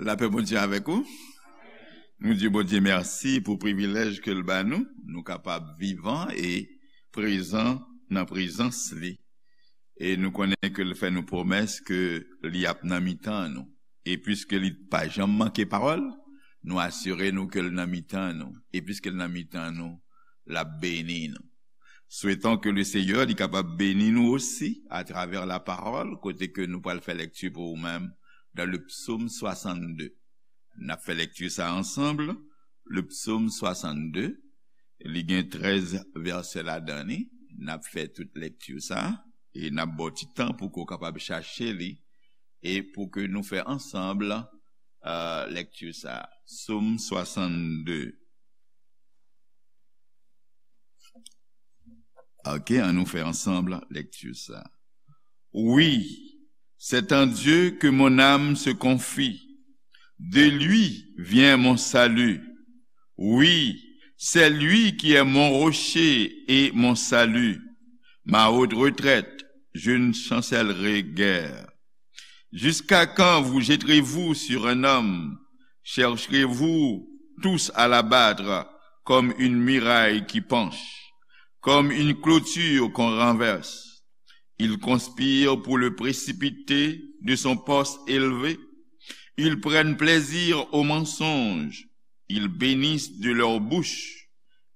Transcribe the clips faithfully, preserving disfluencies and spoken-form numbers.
Lapè Bondye avèk ou. Nou di Bondye mèsi pou privilèj ke l ba nou. Nou kapab vivan e prezan nan prezans li. E nou konnen ke l fè nou pwomès ke li ap nan mitan nou. E piske li pa janm manke pawòl, nou asire nou ke l nan mitan nou. E piske l nan mitan nou, l ap beni nou. Souhaitons que le Seigneur li kapab beni nou osi atravè la parole, kote ke nou pral fè lèkti pou ou menm dans le psaume soixante-deux. N ap fè lèkti sa ansanm, le psaume soixante-deux, li gen trèz vèsè ladan li. N ap fè tout lèkti sa e n ap ba w ti tan pou ke w kapab chache li e pou ke nou fè ansanm, euh, lèkti sa. Psaume soixante-deux. Ok, annou fè ansanm lèkti sa. Oui, c'est en Dieu que mon âme se confie. De lui vient mon salut. Oui, c'est lui qui est mon rocher et mon salut, ma haute retraite, je ne chancellerai guère. Jusqu'à quand vous jetterez-vous sur un homme? Chercherez-vous tous à l'abattre comme une muraille qui penche, comme une clôture qu'on renverse? Ils conspirent pour le précipiter de son poste élevé. Ils prennent plaisir au mensonge. Ils bénissent de leur bouche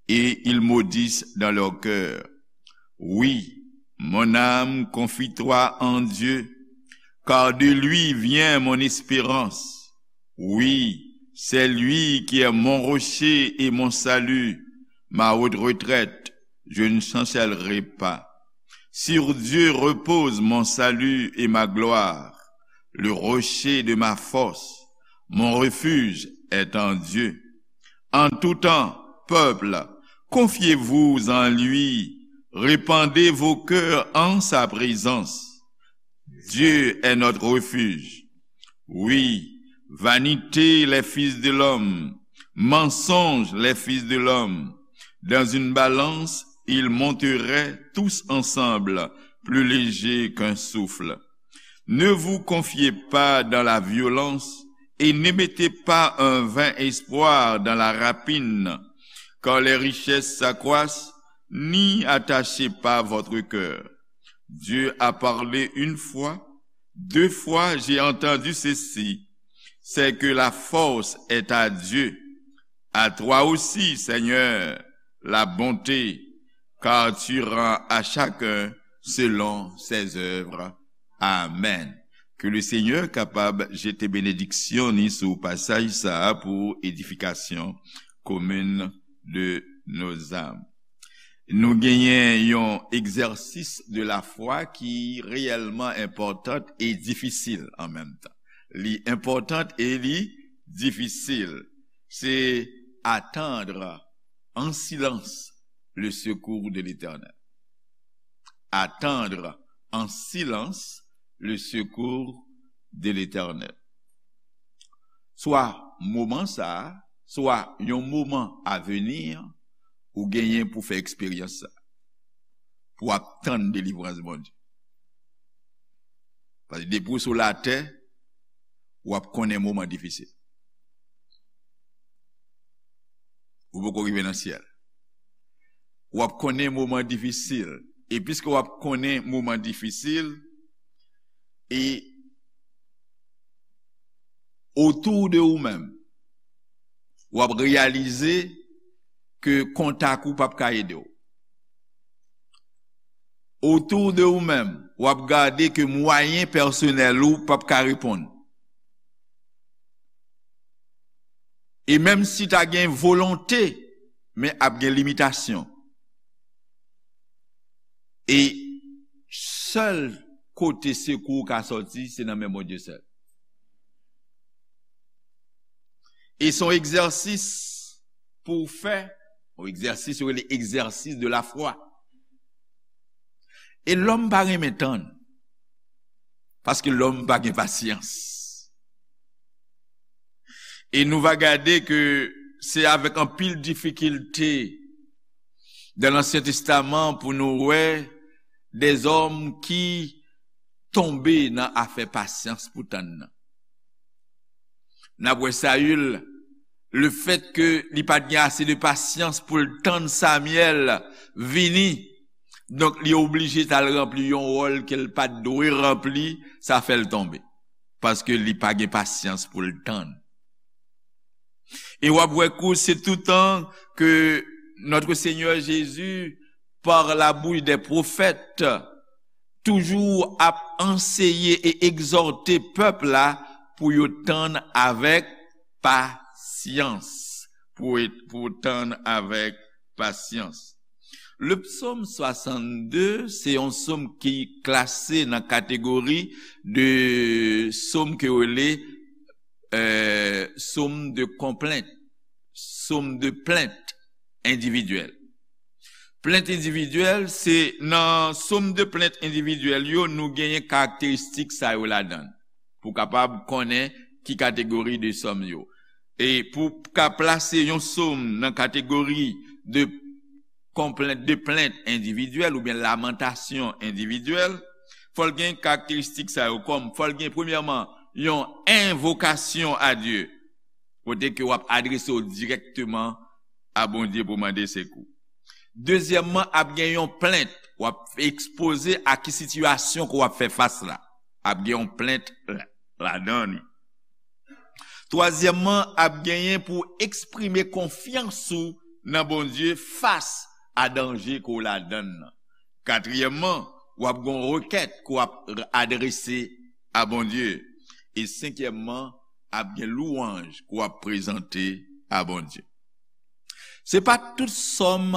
et ils maudissent dans leur cœur. Oui, mon âme, confie-toi en Dieu, car de lui vient mon espérance. Oui, c'est lui qui est mon rocher et mon salut, ma haute retraite, je ne chancellerai pas. Sur Dieu repose mon salut et ma gloire, le rocher de ma force, mon refuge est en Dieu. En tout temps, peuple, confiez-vous en lui, répandez vos cœurs en sa présence. Dieu est notre refuge. Oui, vanité les fils de l'homme, mensonge les fils de l'homme. Dans une balance, ils monteraient tous ensemble, plus légers qu'un souffle. Ne vous confiez pas dans la violence et ne mettez pas un vain espoir dans la rapine, car les richesses s'accroissent, n'y attachez pas votre cœur. Dieu a parlé une fois, deux fois j'ai entendu ceci, c'est que la force est à Dieu. À toi aussi, Seigneur, la bonté, car tu rends à chacun selon ses œuvres. Amen. Ke le Senyè kapab jete benediksyon ni sou pasaj sa a pou edifikasyon komin de nos âmes. Nou genyen yon egzèsis de la foi ki reyèlman enpòtan e difisil an menm tan. Li enpòtan e li difisil. Se attendre en silence le secours de l'Éternel. Attendre en silence le secours de l'Éternel. Swa moman sa a, swa yon moman avni, ou genyen pou fè eksperyans sa a, pou w ap tann delivrans Bondye. Paske depi w sou latè, w ap konnen moman difisil. Ou poko rive nan syèl. W ap konnen moman difisil. E piske w ap konnen moman difisil, e otou de ou menm, w ap reyalize ke kontak ou p ap ka ede w. Otou de ou menm, w ap gade ke mwayen pèsonèl ou p ap ka reponn. E menm si ta gen volonte, men ap gen limitasyon. E sèl kote sekou ka sòti, se nan men Bondye sèl. E se yon egzèsis pou w fè, yon egzèsis yo rele egzèsis de la foi. E lòm pa renmen tann, paske lòm pa gen pasyans. E nou va gade ke se avèk anpil difikilte dan Lansyen Testaman pou nou wè dèzòm ki tonbe nan afè pasyans pou tann nan. N ap wè Sayil, lefètke li pa t gen ase de pasyans pou l tann Samyèl vini, donk, li oblije t al ranpli yon wòl ke l pa t dwe ranpli, sa fè l tonbe. Paske li pa gen pasyans pou l tann. E w ap wè kou se toutan ke Notre Seigneur Jésus, par la bouche des prophètes, toujou ap anseye e egzòte pèp la pou yo tann avèk pasyans. Pou, pou tann avèk pasyans. Le psaume soixante-deux, se yon sòm ki klase nan kategori de sòm ke yo rele, euh, sòm de konplent, sòm de plent endividyèl. Plent endividyèl, se nan sòm de plent endividyèl yo, nou genyen karakteristik sa yo ladan l, pou kapab konnen ki kategori de sòm yo. E pou ka plase yon sòm nan kategori de konplent, de plent endividyèl oubyen lamantasyon endividyèl, fò l gen karakteristik sa yo kòm, fò l gen premyèman yon envokasyon a Dye, kote ke w ap adrese w dirèkteman a Bondye pou mande sekou. Dezyèmman, ap gen yon plent, w ap ekspoze a ki sitiyasyon ke w ap fè fas la. Ap gen yon plent la, ladan li. Twazyèmman, ap genyen pou eksprime konfyans ou nan Bondye fas a danje ke w ladan l nan. Katriyèmman, w ap gen yon rekèt ke w ap adrese a Bondye. E senkyèmman, ap gen lwanj ke w ap prezante a Bondye. Se pa tout sòm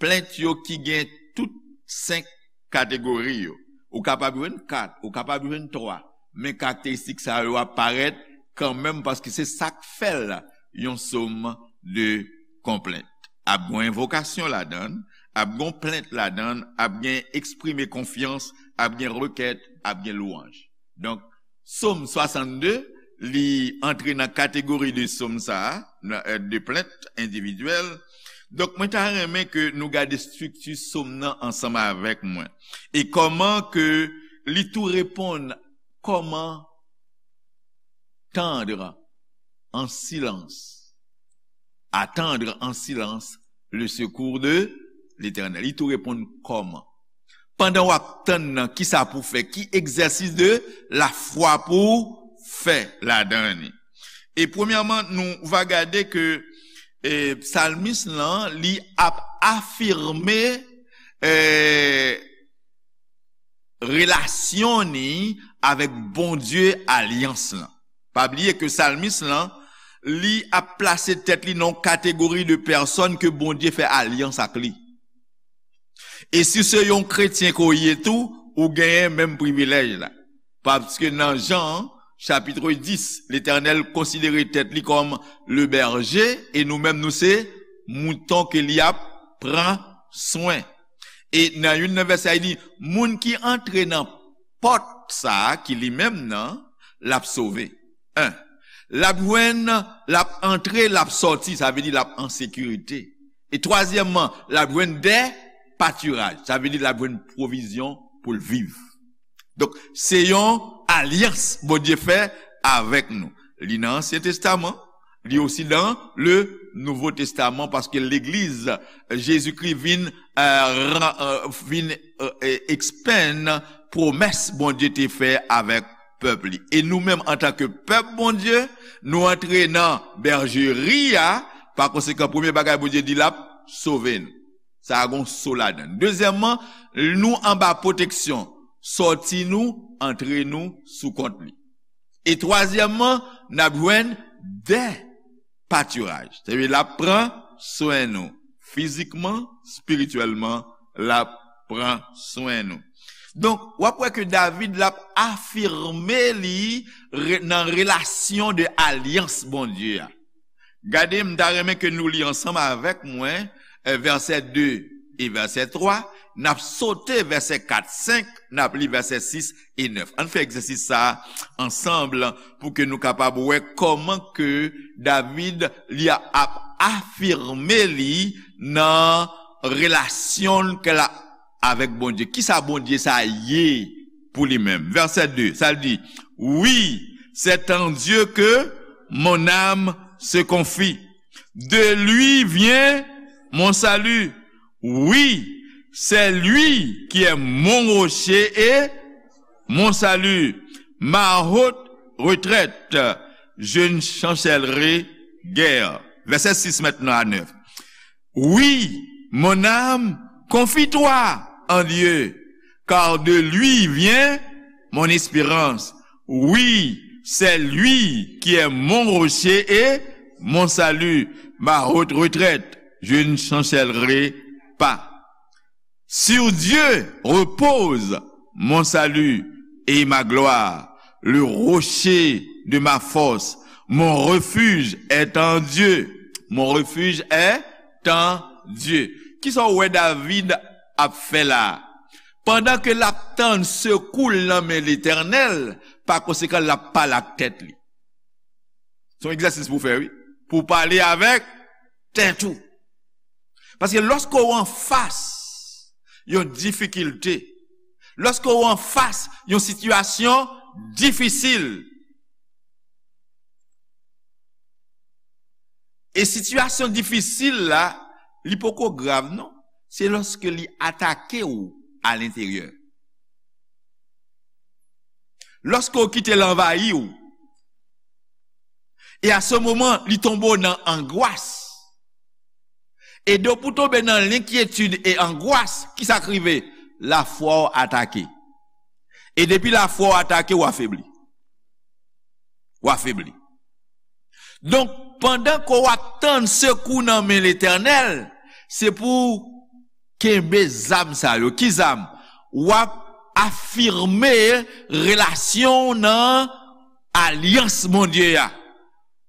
plent yo ki gen tout senk kategori yo. Ou kapab jwenn kat, ou kapab jwenn twa, men karakteristik sa yo ap parèt kanmenm paske se sa k fè l yon sòm de konplent. Ap gen envokasyon ladan l, ap gen plent ladan l, ap gen eksprime konfyans, ap gen rekèt, ap gen lwanj. Donk, Sòm swasannde, li antre nan kategori de sòm sa a, nan, euh, de plent endividyèl. Donk, mwen ta renmen ke nou gade estrikti sòm nan ansanm avèk mwen. E kòman ke li tou reponn, comment tendre en silence, attendre en silence le secours de l'Éternel. Li tou reponn kòman. Pandan w ap tann nan, kisa pou w fè? Ki egzèsis de lafwa pou w fè ladan li? E premyèman, nou va gade ke, e, psalmis lan, li ap afime, e, relasyon ni avèk Bondye alyans lan. Pa bliye ke psalmis lan, li ap plase tèt li nan yon kategori de pèsòn ke Bondye fè alyans ak li. E si se yon kretyen ke w ye tou, ou genyen menm privilèj la. Paske nan Jan, chapit dis, Letènèl konsidere tèt li kòm le berje, e nou menm nou se mouton ke li ap pran swen. E nan youn nan vèsè, li di, moun ki antre nan pòt sa a, ki li menm nan, l ap sove. En, l ap jwenn, l ap antre, l ap sòti, sa vle di l ap an sekirite. E twazyèmman, l ap jwenn de patiraj, sa vle di l ap jwenn pwovizyon pou l viv. Donk, se yon alyans Bondye fè avèk nou. Li nan Ansyen Testaman, li osi nan le Nouvo Testaman, paske legliz Jezikri vin, euh, ran-, euh, vin, euh, e-, ekspann pwomès Bondye te fè avèk pèp li. E nou menm, antanke pèp Bondye, nou antre nan bèjeri a, pa konsekan, premye bagay Bondye di, l ap sove nou. Sa a gon so ladan l. Dezyèmman, nou anba pwoteksyon. Sòti nou, antre nou sou kont li. E twazyèmman, n ap jwenn de patiraj. Sa vle di l ap pran swen nou. Fizikman, espirityèlman, l ap pran swen nou. Donk, w ap wè ke David, l ap afime li re-, nan relasyon de alyans Bondye a. Gade, m ta renmen ke nou li ansanm avèk mwen, eh, vèsè de e vèsè twa, n ap sote vèsè kat, senk, n ap li vèsè sis e nèf. Ann fè egzèsis sa a ansanm pou ke nou kapab wè kòman ke David li a-, ap afime li nan relasyon l ke l a avèk Bondye. Kisa Bondye sa ye pou li menm? Vèsè de, sa l di, oui, c'est en Dieu que Mon âme se confie. De lui vient mon salut. Oui, c'est lui qui est mon rocher et mon salut, ma haute retraite. Je ne chancellerai guère. Verset six maintenant à neuf. Oui, mon âme, confie-toi en Dieu, car de lui vient mon espérance. Oui, c'est lui qui est mon rocher et mon salut, ma haute retraite. Je ne chancellerai pas. Sur Dieu repose mon salut et ma gloire, le rocher de ma force. Mon refuge est en Dieu. Mon refuge est en Dieu. Kisa w wè David ap fè la? Pandan ke l ap tann sekou l nan men Letènèl, pa konsekan, l ap pale ak tèt li. Se yon egzèsis pou w fè, wi. Pou w pale avèk tèt ou. Paske lòske w anfas yon difikilte, lòske w anfas yon sitiyasyon difisil, e sitiyasyon difisil la, li poko grav non, se lòske li atake w alenteryè. Lòske w kite l anvayi w, e a se moman, li tonbe w nan angwas. E depi w tonbe nan lenkyetid e angwas, kisa k rive? Lafwa w atake. E depi lafwa w atake, w afebli. W afebli. Donk, pandan ke w ap tann sekou nan men Letènèl, se pou w kenbe zam sa yo. Ki zam? W ap afime relasyon w nan alyans Bondye a.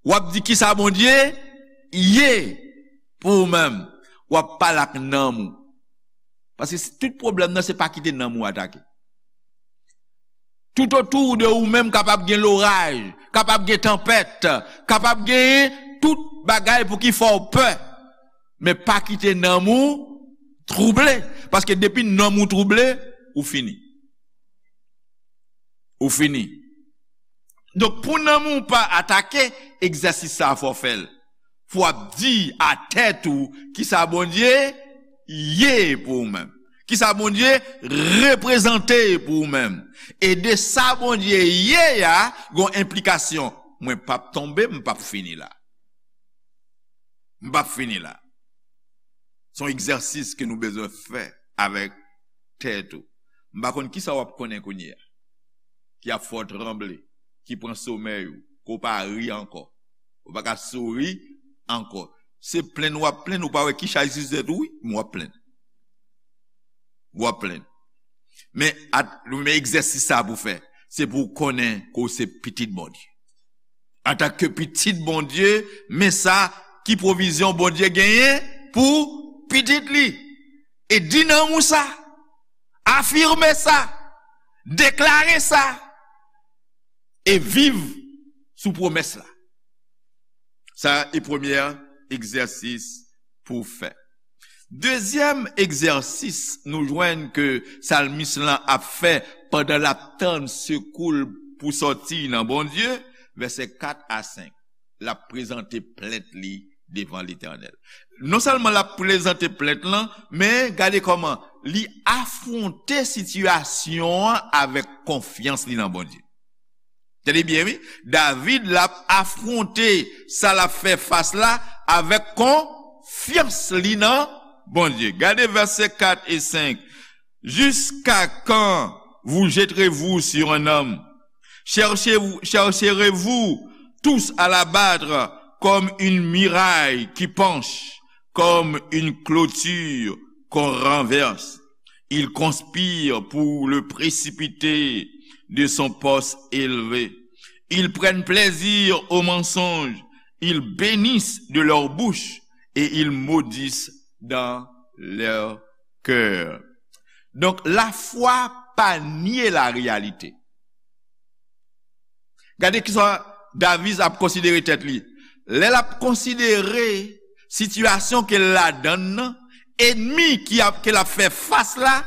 W ap di kisa Bondye ye pou ou menm. W ap pale ak nanm ou. Paske si tout pwoblèm nan, se pa kite nanm ou atake. Tout otou de ou menm kapab gen loraj, kapab gen tanpèt, kapab gen tout bagay pou ki fè w pè. Men pa kite nanm ou twouble. Paske depi nanm ou twouble, ou fini. Ou fini. Donk, pou nanm ou pa atake, egzèsis sa a fò w fè l. Fò w ap di a tèt ou kisa Bondye ye pou ou menm. Kisa Bondye reprezante pou ou menm. E de sa Bondye ye a, gon enplikasyon. Mwen p ap tonbe, m p ap fini la. M p ap fini la. Se yon egzèsis ke nou bezwen fè avèk tèt ou. M pa konn kisa w ap konnen kounye a, ki ap fè w tranble, ki pran somèy ou, ke w pa ri ankò, ou pa ka souri ankò. Se plenn w ap plenn, ou pa wè ki chay sou tèt ou, wi, men w ap plenn. W ap plenn. Men, at, men egzèsis sa pou fè, se pou w konnen ke w se pitit Bondye. Antanke pitit Bondye, men sa ki pwovizyon Bondye genyen pou pitit li. E di nanm ou sa, afime sa, deklare sa, e viv sou pwomès la. Sa e premye egzèsis pou w fè. Dezyèm egzèsis nou jwenn ke salmis lan ap fè pandan l ap tann sekou l pou sòti nan Bondye, vèsè kat a senk, l ap prezante plent li devan Letènèl. Non sèlman l ap prezante plent lan, men gade kòman li afwonte sitiyasyon an avèk konfyans li nan Bondye. Tande byen, wi. David, l ap afwonte sa l ap fè fas la avèk konfyans li nan Bondye. Gade vèsè kat e senk. Jusqu'à quand vous jetterez-vous sur un homme? Cherchez-vous, chercherez-vous tous à l'abattre comme une muraille qui penche, comme une clôture qu'on renverse. Ils conspirent pour le précipiter de son poste élevé. Ils prennent plaisir au mensonge. Ils bénissent de leur bouche et ils maudissent dans leur cœur. Donk, lafwa pa nye lareyalite. Gade kisa David ap konsidere tèt li. Lè l ap konsidere sitiyasyon ke l ladann nan, enmi ki ap, ke l ap fè fas la,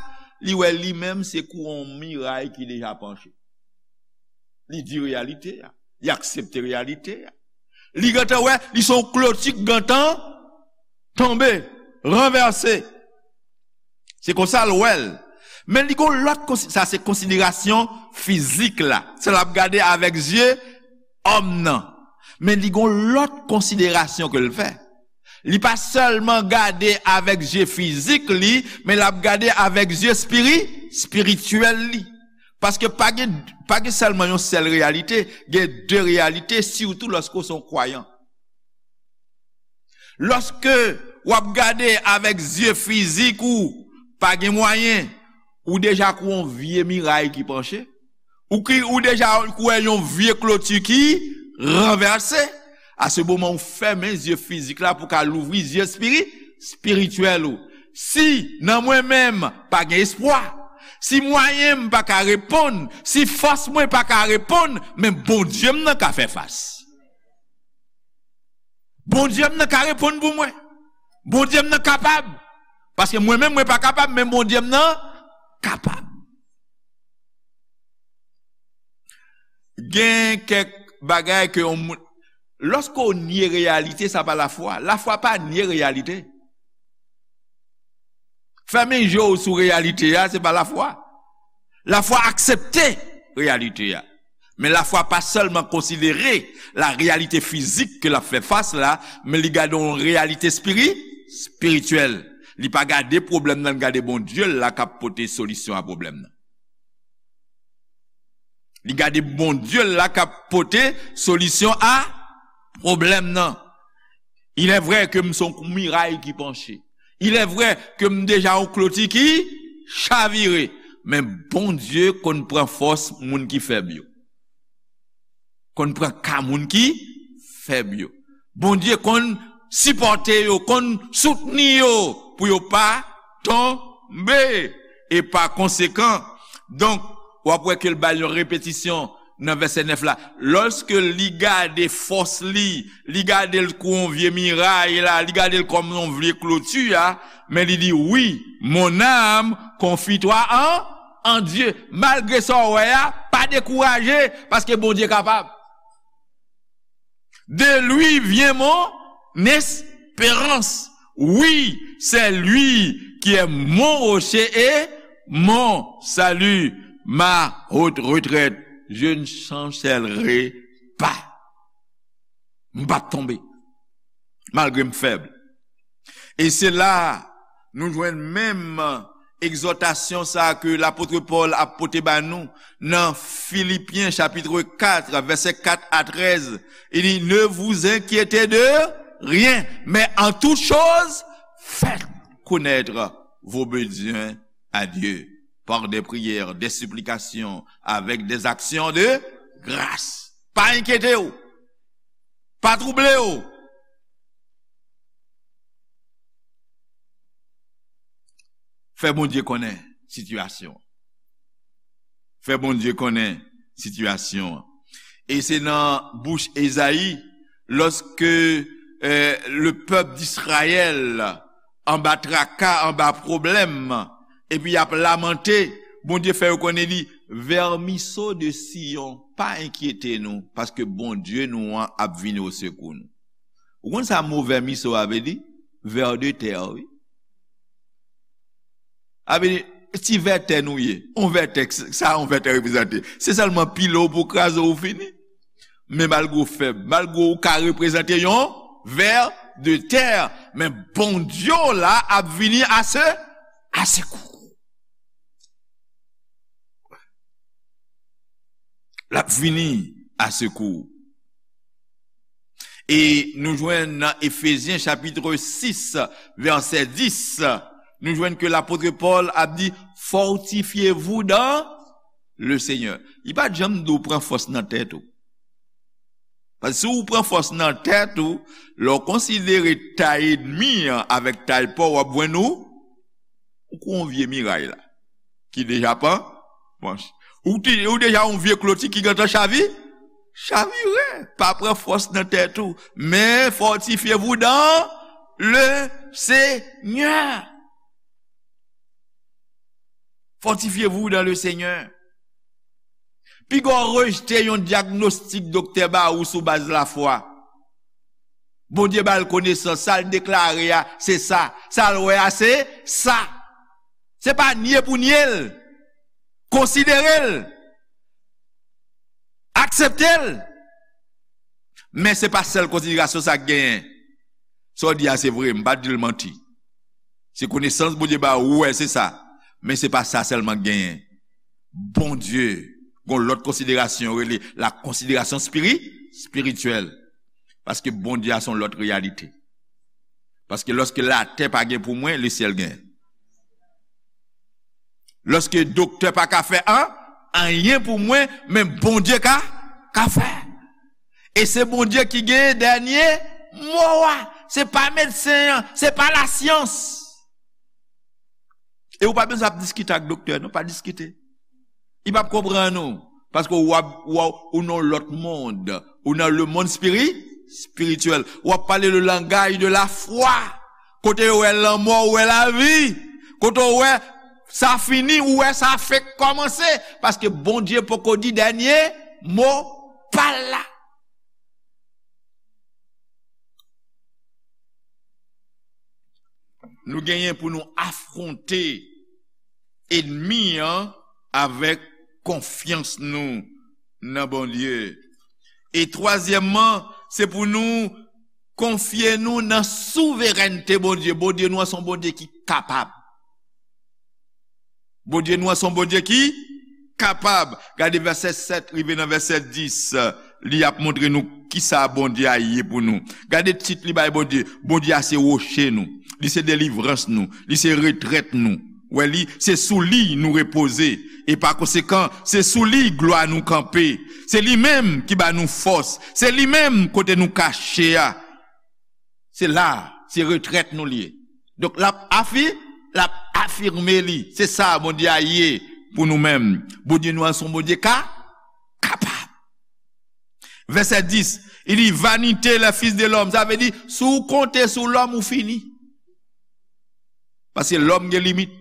li wè li menm se kou yon miray ki deja panche. Li di reyalite a. Li aksepte reyalite a. Li gentan wè, li se yon kloti k gentan tonbe, ranvèse. Se konsa l wè l. Men li gon lòt konsi-, sa se konsiderasyon fizik la. Sa l ap gade avèk zye òm nan. Men li gon lòt konsiderasyon ke l fè. Li pa sèlman gade avèk zye fizik li, men l ap gade avèk zye espiri-, espirityèl li. Paske pa gen, pa gen sèlman yon sèl reyalite, gen de reyalite, sitou lòske w se yon kwayan. Lòske w ap gade avèk zye fizik ou, pa gen mwayen, ou deja kou yon vye miray ki panche. Ou ki, ou deja kou wè yon vye kloti ki ranvèse. A se moman ou fèmen zye fizik la pou ka louvri zye espiri-, espirityèl ou. Si nan mwen menm pa gen espwa, si mwayen m pa ka reponn, si fòs mwen pa ka reponn, men Bondye m nan ka fè fas. Bondye m nan ka reponn pou mwen. Bondye m nan kapab. Paske mwen menm, mwen pa kapab, men Bondye m nan kapab. Gen kèk bagay ke yon moun, lòske w nye reyalite, sa pa lafwa. Lafwa pa nye reyalite. Fèmen je w sou reyalite a, se pa lafwa. Lafwa aksepte reyalite a. Men lafwa pa sèlman konsidere la reyalite fizik ke l ap fè fas la, men li gade yon reyalite espiri-, espirityèl. Li pa gade pwoblèm nan, li gade Bondye l la k ap pote solisyon a pwoblèm nan. Li gade Bondye l la k ap pote solisyon a pwoblèm nan. Il est vrai ke m se yon miray ki panche. Il est vrai ke m deja yon kloti ki chavire. Men Bondye konn pran fòs moun ki fèb yo. Konn pran ka moun ki fèb yo. Bondye konn sipòte yo, konn soutni yo pou yo pa tonbe. E pa konsekan, donk, w ap wè ke l bay yon repetisyon nan vèsè nèf la. Lòske li gade fòs li, li gade l kou yon vye miray la, li gade l kòm yon vye kloti a, men li di, wi, mon âme, confie-toi en, en Dieu. Malgre sa w wè a, pa dekouraje, paske Bondye kapab. De lui vient mon espérance. Oui, c'est lui qui est mon rocher et mon salut, ma haute retraite. Je ne chancellerai pas. M p ap tonbe, malgre m fèb. E se la nou jwenn menm egzòtasyon sa a ke lapot Pòl ap pote ba nou nan Filipyen chapit kat, vèsè kat a trèz. Li di, ne vous inquiétez de rien, mais en toute chose, faites connaître vos besoins à Dieu par des prières, des supplications, avec des actions de grâce. Pa enkyete w. Pa twouble w. Fè Bondye konnen sitiyasyon an. Fè Bondye konnen sitiyasyon an. E se nan bouch Ezayi, lòske, eh, le pèp d'Izrayèl anba traka, anba pwoblèm, epi y ap lamante, Bondye fè yo konnen li, vèmiso de Siyon, pa enkyete nou, paske Bondye nou an ap vini osekou nou. Ou konn sa mo vèmiso a vle di? Ver de terre, wi. A vle di, ti vètè nou ye. On vètè, sa on vètè reprezante. Se sèlman pile w pou kraze w fini. Men malgre w fèb, malgre w ka reprezante yon ver de terre, men Bondye w la ap vini a se, a sekou. L ap vini a sekou. E nou jwenn nan Efezyen chapit sis, vèsè dis, nou jwenn ke lapot Pòl ap di, fortifiez-vous dans le Seigneur. Li pa t janm di w pran fòs nan tèt ou. Paske si w pran fòs nan tèt ou, lè w konsidere tay ènmi an avèk tay pa w, w ap jwenn ou, ou kou yon vye miray la, ki deja pa manch. Ou, ti, ou deja yon vye kloti ki gentan chavi, chavire. Pa pran fòs nan tèt ou, men fortifiez-vous dans le Seigneur. Fortifiez-vous dans le Seigneur. Piga w rejte yon dyagnostik doktè ba ou sou baz lafwa. Bondye ba l konesans, sa l deklare a, se sa. Sa l wè a, se sa. Se pa nye pou nye l. Konsidere l. Aksepte l. Men se pa sèl konsiderasyon sa k genyen. Sa w di a se vre, m pa di l manti. Se konesans Bondye ba ou, ou wè se sa. Men se pa sa sèlman k genyen. Bondye, gon lòt konsiderasyon, yo rele la konsiderasyon spiri-, espirityèl. Paske Bondye a se yon lòt reyalite. Paske lòske latè pa gen pou mwen, lesyèl gen. Lòske doktè pa ka fè an, anyen pou mwen, men Bondye ka, ka fè. E se Bondye ki gen dènye mo a. Se pa medsen an, se pa lasyans. E ou pa bezwen ap diskite ak doktè, non, pa diskite. Li p ap konprann ou. Paske w ap, w ap, ou nan lòt mond. Ou nan le mond spiri-, espirityèl. W ap pale le langaj de la fwa. Kote yo wè lanmò, ou wè lavi. Kote w wè sa fini, ou wè sa fenk kòmanse. Paske Bondye poko di dènye mo pa l la. Nou genyen pou nou afwonte ènmi an avèk konfyans nou nan Bondye. E twazyèmman, se pou nou konfye nou nan souverènte Bondye. Bondye nou an se yon Bondye ki kapab. Bondye nou an se yon Bondye ki kapab. Gade vèsè sèt rive nan vèsè dis, li ap montre nou kisa Bondye a ye pou nou. Gade tit li bay Bondye. Bondye a se woche nou. Li se delivrans nou. Li se retrèt nou. Wè li, se sou li nou repoze. E pa konsekan, se sou li glwa nou kanpe. Se li menm ki ba nou fòs. Se li menm kote nou kache a. Se la, se retrèt nou li ye. Donk, l ap afi-, l ap afime li. Se sa Bondye a ye pou nou menm. Bondye nou an se yon Bondye ka, kapab. Vèsè dis, li di, vanite les fils de l'homme. Sa vle di, si w konte sou lòm, ou fini. Paske lòm gen limit.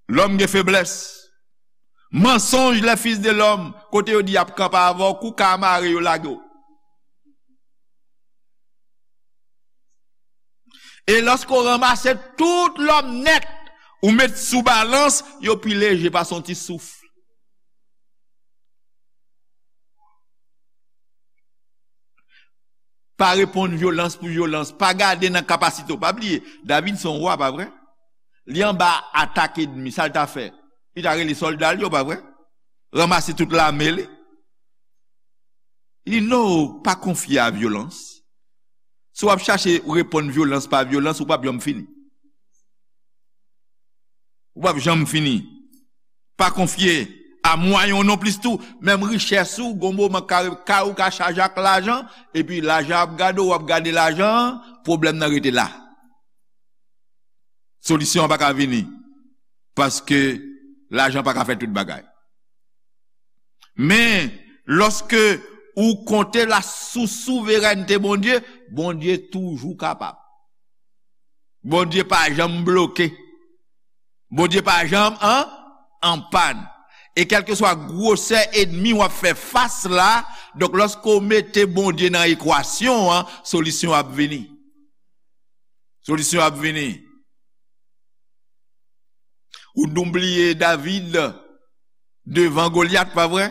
Lòm gen feblès. Mansonj les fils de l'homme, kote yo di y ap kanpe avè w, kou ka mare yo lage w. E lòske w ranmase tout lòm nèt, ou met sou balans, yo pi leje pase yon ti souf. Pa reponn vyolans pou vyolans. Pa gade nan kapasite w. Pa bliye, David se yon wa, pa vre? Li anba atak ènmi, sa l ta fè? Li ta rele sòlda l yo, pa vre? Ranmase tout lame li. Li di, non, pa konfye a vyolans. Si w ap chache reponn vyolans pa vyolans, ou p ap janm fini. Ou p ap janm fini. Pa konfye a mwayen w non plis tou. Menm richès ou, gon moman kay, kay ou ka chaje ak lajan, epi lajan ap gade w, w ap gade lajan an, pwoblèm nan rete la. Solisyon an pa ka vini. Paske lajan pa ka fè tout bagay. Men, lòske ou konte la sou souverènte Bondye, Bondye toujou kapab. Bondye pa janm bloke. Bondye pa janm an, an pàn. E kèlkeswa gwosè ènmi w ap fè fas la, donk lòske w mete Bondye nan ekwasyon an, solisyon ap vini. Solisyon ap vini. Ou nou bliye David devan Golyat, pa vre?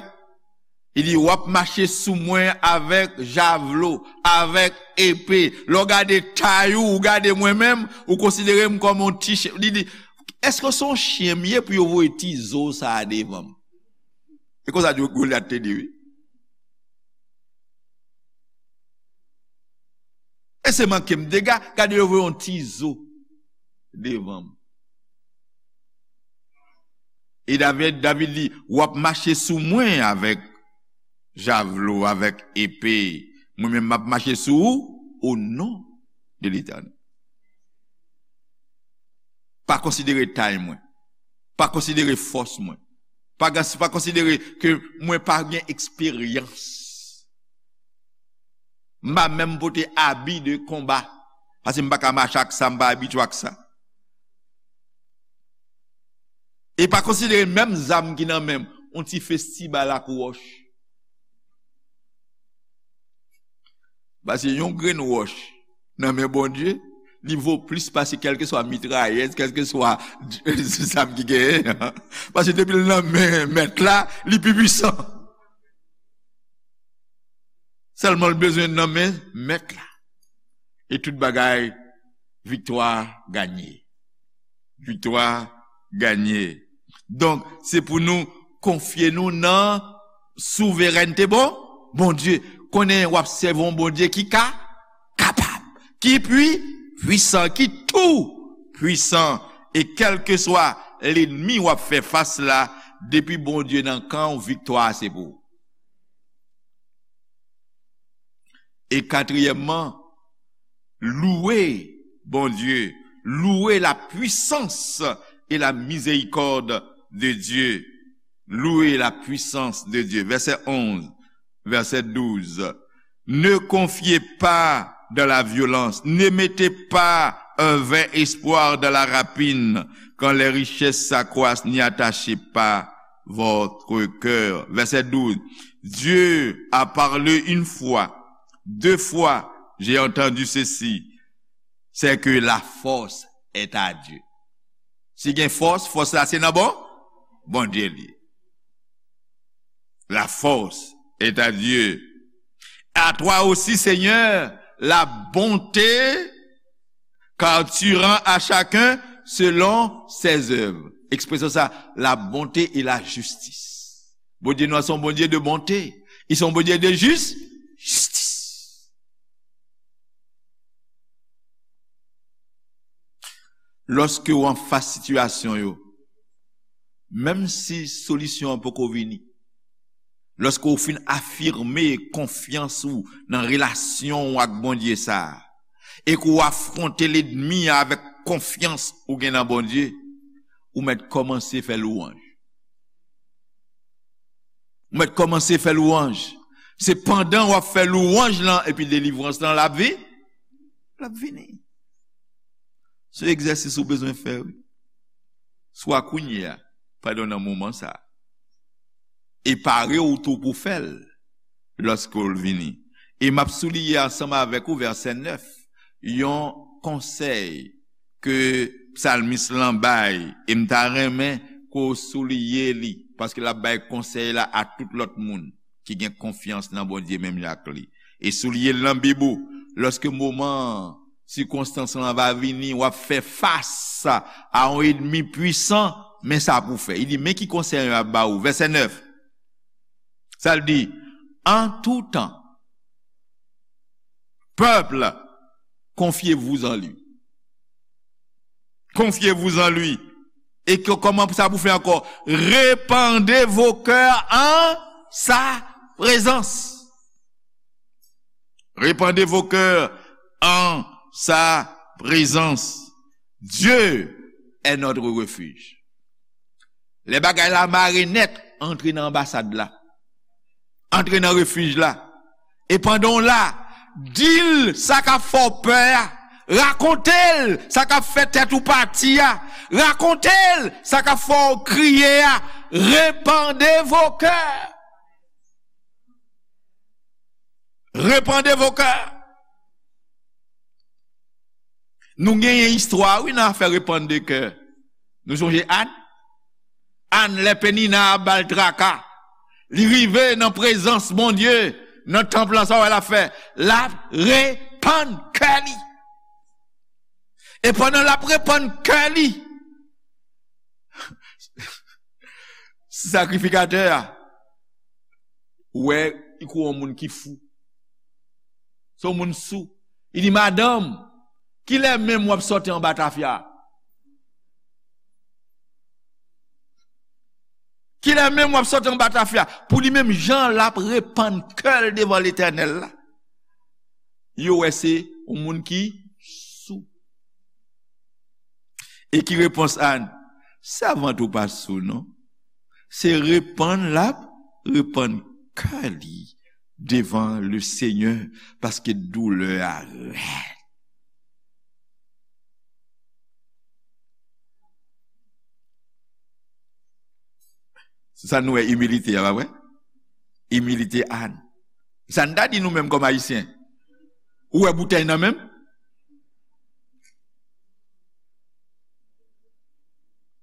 Li di, w ap mache sou mwen avèk javlo, avèk epe. Lè w gade tay ou, ou gade mwen menm, ou konsidere m kòm yon ti chen. Li di, èske se yon chen m ye pou yo voye ti zo sa a devan m? E konsa Golyat te di, wi. E se manke m dega, gade yo voye yon ti zo devan m. E David, David di, w ap mache sou mwen avèk javlo, avèk epe. Mwen menm, m ap mache sou ou, o non de Letènèl. Pa konsidere tay mwen. Pa konsidere fòs mwen. Pa, pa konsidere ke mwen pa gen eksperyans. M pa menm pote abi de konba. Paske m pa ka mache ak sa, m pa abitye ak sa. E pa konsidere menm zam ki nan men m, yon ti festibal ak wòch. Paske yon grenn wòch nan men Bondye, li vo plis pase kèlkeswa mitrayèz, kèlkeswa zam ki genyen an. Paske depi l nan men Mèt la, li pi pwisan. Sèlman l bezwen nan men Mèt la. E tout bagay, viktwa ganye. Viktwa ganye. Donk, se pou nou konfye nou nan souverènte bon, Bondye. Konnen w ap sèvi yon Bondye ki ka, kapab, ki pwi, pwisan, ki tou pwisan. E kèlkeswa lènmi w ap fè fas la, depi Bondye nan kan w, viktwa a se pou ou. E katriyèmman, louwe Bondye, louwe la puissance et la miséricorde de Dieu. Louwe la puissance de Dieu. Vèsè onz, vèsè douz. Ne confiez pas dans la violence, ne mettez pas un vain espoir dans la rapine, quand les richesses s'accroissent, n'y attachez pas votre cœur. Vèsè douz. Dieu a parlé une fois, deux fois, j'ai entendu ceci, c'est que la force est à Dieu. Si gen fòs, fòs la se nan bon, Bondye li. La force est à Dieu. À toi aussi, Seigneur, la bonté, car tu rends à chacun selon ses œuvres. Ekspresyon sa, la bonté et la justice. Bondye nou an se yon Bondye de bonte. Li se yon Bondye de jis, jistis. Lòske w anfas sitiyasyon yo, menm si solisyon an poko vini, lòske w fin afime konfyans ou nan relasyon w ak Bondye sa a, e ke w afwonte lènmi an avèk konfyans ou gen nan Bondye, ou mèt kòmanse fè lwanj. Ou mèt kòmanse fè lwanj. Se pandan w ap fè lwanj lan, epi delivrans lan, l ap vi-, l ap vini. Se egzèsis ou bezwen fè, wi. Swa kounye a, pandan nan moman sa a. E pare w tou pou fè l lòske l vini. E m ap souliye ansanm avèk ou vèsè nèf, yon konsèy ke psalmis lan bay, e m ta renmen ke w souliye li, paske l ap bay konsèy la a tout lòt moun ki gen konfyans nan Bondye menm jan ak li. E souliye l nan Bib ou, lòske moman sikonstans lan va vini, w ap fè fas a yon ènmi pwisan, men sa pou fè. Li di, men ki konsèy m ap ba ou. Vèsè nèf. Sa l di, en tout temps, peuple, confiez-vous en lui. Confiez-vous en lui. E ke, kòman sa pou fè ankò? Répandez vos cœurs en sa présence. Répandez vos cœurs en sa présence. Dieu est notre refuge. Lè bagay la mare nèt, antre nan anbasad la. Antre nan refij la. E pandan w la, di l sa k ap fè w pè a. Rakonte l sa k ap fè tèt ou pati a. Rakonte l sa k ap fè w kriye a. Répandez vos cœurs. Répandez vos cœurs. Nou genyen istwa, wi, nan afè repann de kè. Nou sonje Ann? Ann, lè Penina ap ba l traka, li rive nan prezans Bondye, nan tanp lan, sa w wè l ap fè? L ap repann kè li. E pandan l ap repann kè li, sakrifikatè a wè li kou yon moun ki fou. Se yon moun sou. Li di, madanm, kilè menm w ap sòti anba tafya? Kilè menm w ap sòti anba tafya? Pou li menm, jan l ap repann kè l devan Letènèl la, yo wè se yon moun ki sou. E ki repons Ann? Sèvant ou pa sou, non. Se repann l ap repann kè li devan le Senyè, paske doulè a rèd. Se sa nou wè imilite a, pa vre? Imilite Ann. Sa n ta di nou menm kòm Ayisyen? Ou wè boutèy nan men m?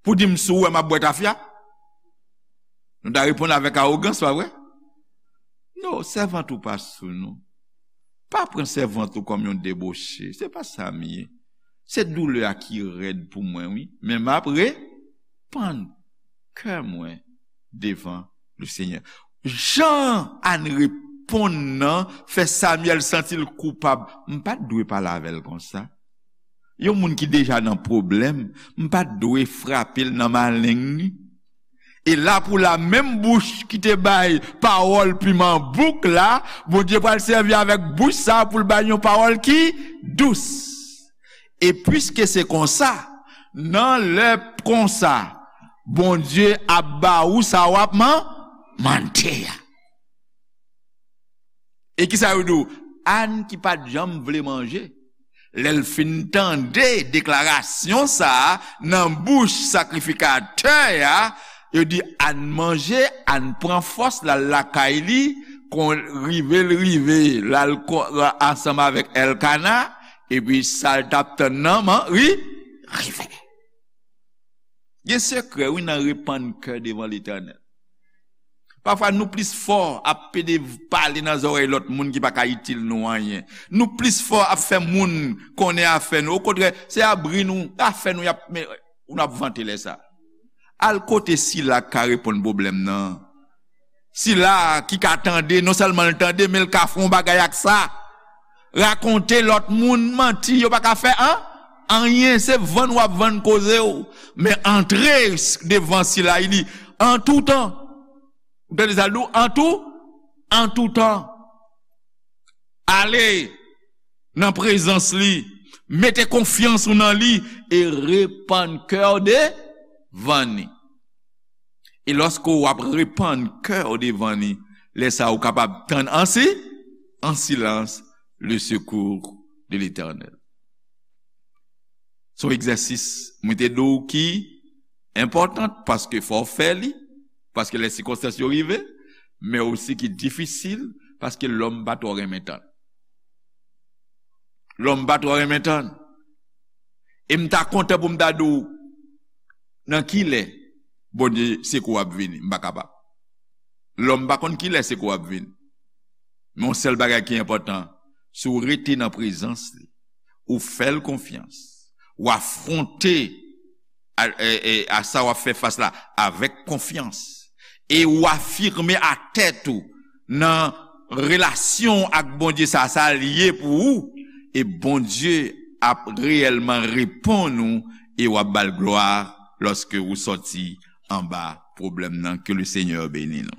Pou di m si w wè m ap bwè tafya? Nou ta reponn avèk awogans, pa vre? Non, sèvant ou pa sou nou. Pa pran sèvant ou kòm yon deboche. Se pa sa m ye. Se doulè a ki rèd pou mwen, wi. Men m ap repann kè mwen devan Lesenyè. Jan Ann reponn nan fè Samyèl santi l koupab. M pa t dwe pale avè l konsa. Yon moun ki deja nan pwoblèm, m pa t dwe frape l nan maleng li. E la pou la, menm bouch ki te bay pawòl piman bouk la, Bondye pral sèvi avèk bouch sa a pou l bay yon pawòl ki dous. E piske se konsa, nan lè konsa, Bondye ap ba ou sa w ap man-, mande a. E kisa yo di w? Ann ki pa t janm vle manje, lè l fin tande deklarasyon sa a nan bouch sakrifikatè a, yo di Ann manje, Ann pran fòs, l al lakay li, kon rive l rive, l al ko-, ansanm avèk Èlkana, epi sa l t ap tann nan, man, ri, rive. Gen sekrè, wi, nan repann kè devan Letènèl. Pafwa, nou plis fò ap pede pale nan zòrèy lòt moun ki pa ka itil nou anyen. Nou plis fò ap fè moun konnen afè nou. Okontrè, se abri nou, afè nou y ap, men, nou ap vante lè sa. Al kote sila k ka reponn pwoblèm nan. Sila ki ka tande, non sèlman l tande, men l ka fè yon bagay ak sa. Rakonte lòt moun manti, yo pa ka fè an-, anyen, se vann w ap vann koze w. Men antre devan sila, li di, an tou tan. Ou tande sa l di w? An tou, an tou tan. Ale nan prezans li, mete konfyans ou nan li e repann kè w devan li. E lòske w ap repann kè w devan li, lè sa a ou kapab tann an si-, an silans le secours de l'Éternel. Se yon egzèsis, mwen te di w ki enpòtan, paske fò w fè li, paske lè sikonstans yo rive, men osi ki difisil, paske lòm pa twò renmen tann. Lòm pa twò renmen tann. E m ta kontan pou m ta di w nan ki lè Bondye sekou w ap vini. M pa kapab. Lòm pa konn ki lè sekou w ap vini. Men yon sèl bagay ki enpòtan, si w rete nan prezans li, ou fè l konfyans, w afwonte a, e, e, a sa w ap fè fas la avèk konfyans, e w afime a tèt ou nan relasyon ak Bondye sa, sa l ye pou ou, e Bondye ap reyèlman reponn ou, e w ap ba l glwa lòske ou sòti anba pwoblèm nan. Ke le Senyè beni nou.